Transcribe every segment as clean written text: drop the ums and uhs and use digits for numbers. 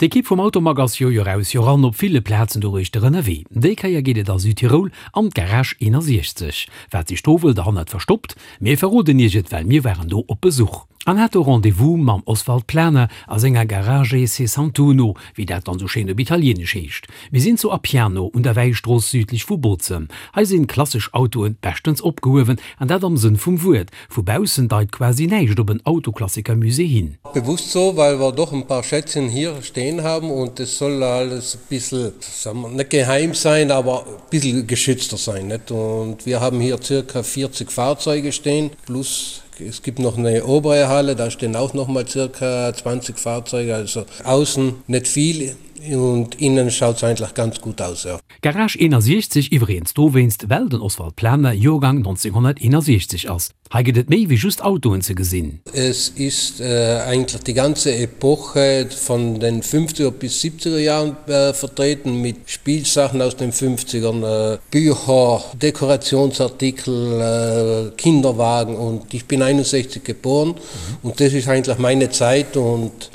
D'Ekipp vum Automag ass jo Joer aus Joer an op ville Plazen doruechter ënnerwee. Déi Kéier geet et a Südtirol an d'Garage 61. Wat sech do wuel derhannert verstoppt? Mir verroden iech et, well mir waren do op Besuch an hate Rendez-vous mam Oswald Planer a senger Garage Sessantuno, wéi dat dann sou schéin op Italieenesch heescht. Mir sinn zu Appiano un der Wäistrooss südlech vu Bozen. Hei sinn klassesch Autoen beschtens opgehuewen, an dat am Sënn vum Wuert. Vu baussen deit quasi näischt op en Autoklassikermusée hin. Bewusst so, weil wir doch ein paar Schätzchen hier stehen haben und es soll alles e bissl, sagen wir, net geheim sein, aber e bissl geschützter sein, net? Und wir haben hier circa 40 Fahrzeuge stehen, plus es gibt noch eine obere Halle, da stehen auch noch mal circa 20 Fahrzeuge, also außen net viel und innen schaut's eigentlich ganz gut aus, ja. Garage 61 iwweregens dowéinst, well den Oswald Planer Joergang 1961 ass. Hei gëtt et méi wéi just Autoen ze gesinn. Es ist eigentlich die ganze Epoche von den fünfziger bis siebziger Jahren vertreten mit Spielsachen aus den fünfzigern, Bücher, Dekorationsartikel, Kinderwagen und ich bin 61 geboren und das ist eigentlich meine Zeit und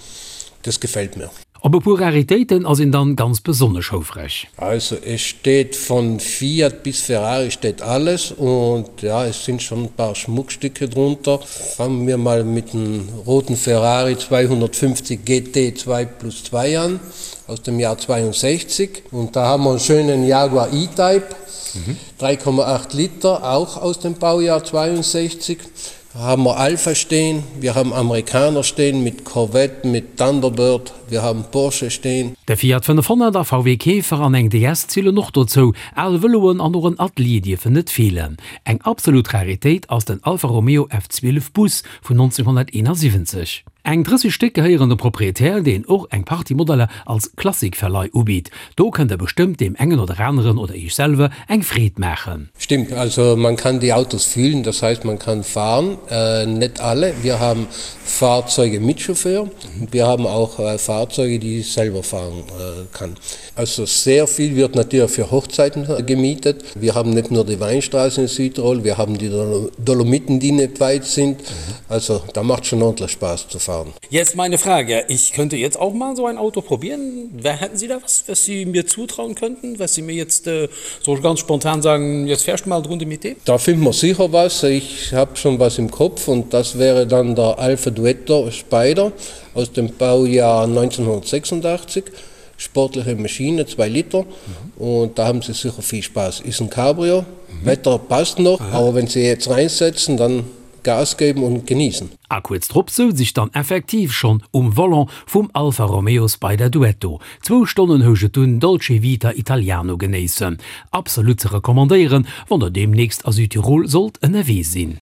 das gefällt mir. Op e puer Raritéiten ass een dann ganz besonnesch houfreg. Also es steht von Fiat bis Ferrari steht alles und ja es sind schon ein paar Schmuckstücke drunter. Fangen wir mal mit dem roten Ferrari 250 GT 2 plus 2 an aus dem Jahr 62 und da haben wir einen schönen Jaguar E-Type 3,8 Liter auch aus dem Baujahr 62. Da haben wir Alfa stehen, wir haben Amerikaner stehen mit Corvette, mit Thunderbird, wir haben Porsche stehen. De Fiat 500 a VW Käfer an eng DS zielen och dozou. Al Vëloen an och en Atelier dierfen net feelen. Eng absolut Raritéit ass den Alfa Romeo F12 Bus vun 1971. Eng 30 Stéck gehéieren dem Proprietär, deen och eng Partie Modeller als Klassikverleih ubitt. Do kënnt der bestëmmt deem engen oder aneren oder iech selwer eng Freed maachen. Stimmt, also man kann die Autos fühlen, das heißt man kann fahren, net alle, wir haben Fahrzeuge mit Chauffeur und wir haben auch Fahrzeuge, die ich selber fahren kann. Also sehr viel wird natürlich für Hochzeiten gemietet. Wir haben nicht nur die Weinstraße in Südtirol, wir haben die Dolomiten, die nicht weit sind. Also da macht schon ordentlich Spaß zu fahren. Jetzt meine Frage, ich könnte jetzt auch mal so ein Auto probieren. Wer hätten Sie da was, was Sie mir zutrauen könnten, was Sie mir jetzt äh, so ganz spontan sagen, jetzt fährst du mal drunter mit dem? Da finden wir sicher was. Ich habe schon was im Kopf und das wäre dann der Alpha Duetto Spider aus dem Baujahr 1986 sportliche Maschine, 2 Liter und da haben sie sicher viel Spaß. Ist ein Cabrio, Wetter passt noch, aber wenn sie jetzt reinsetzen, dann Gas geben und genießen. A kuerz drop souz ech dann effektiv schonn um Volant vum Alfa Romeo Spider Duetto. Zwou Stonnen housch et dunn Dolce Vita Italiano genéissen. Absolut ze recommandéieren, wann der deemnächst a Südtirol sollt ënnerwee sinn.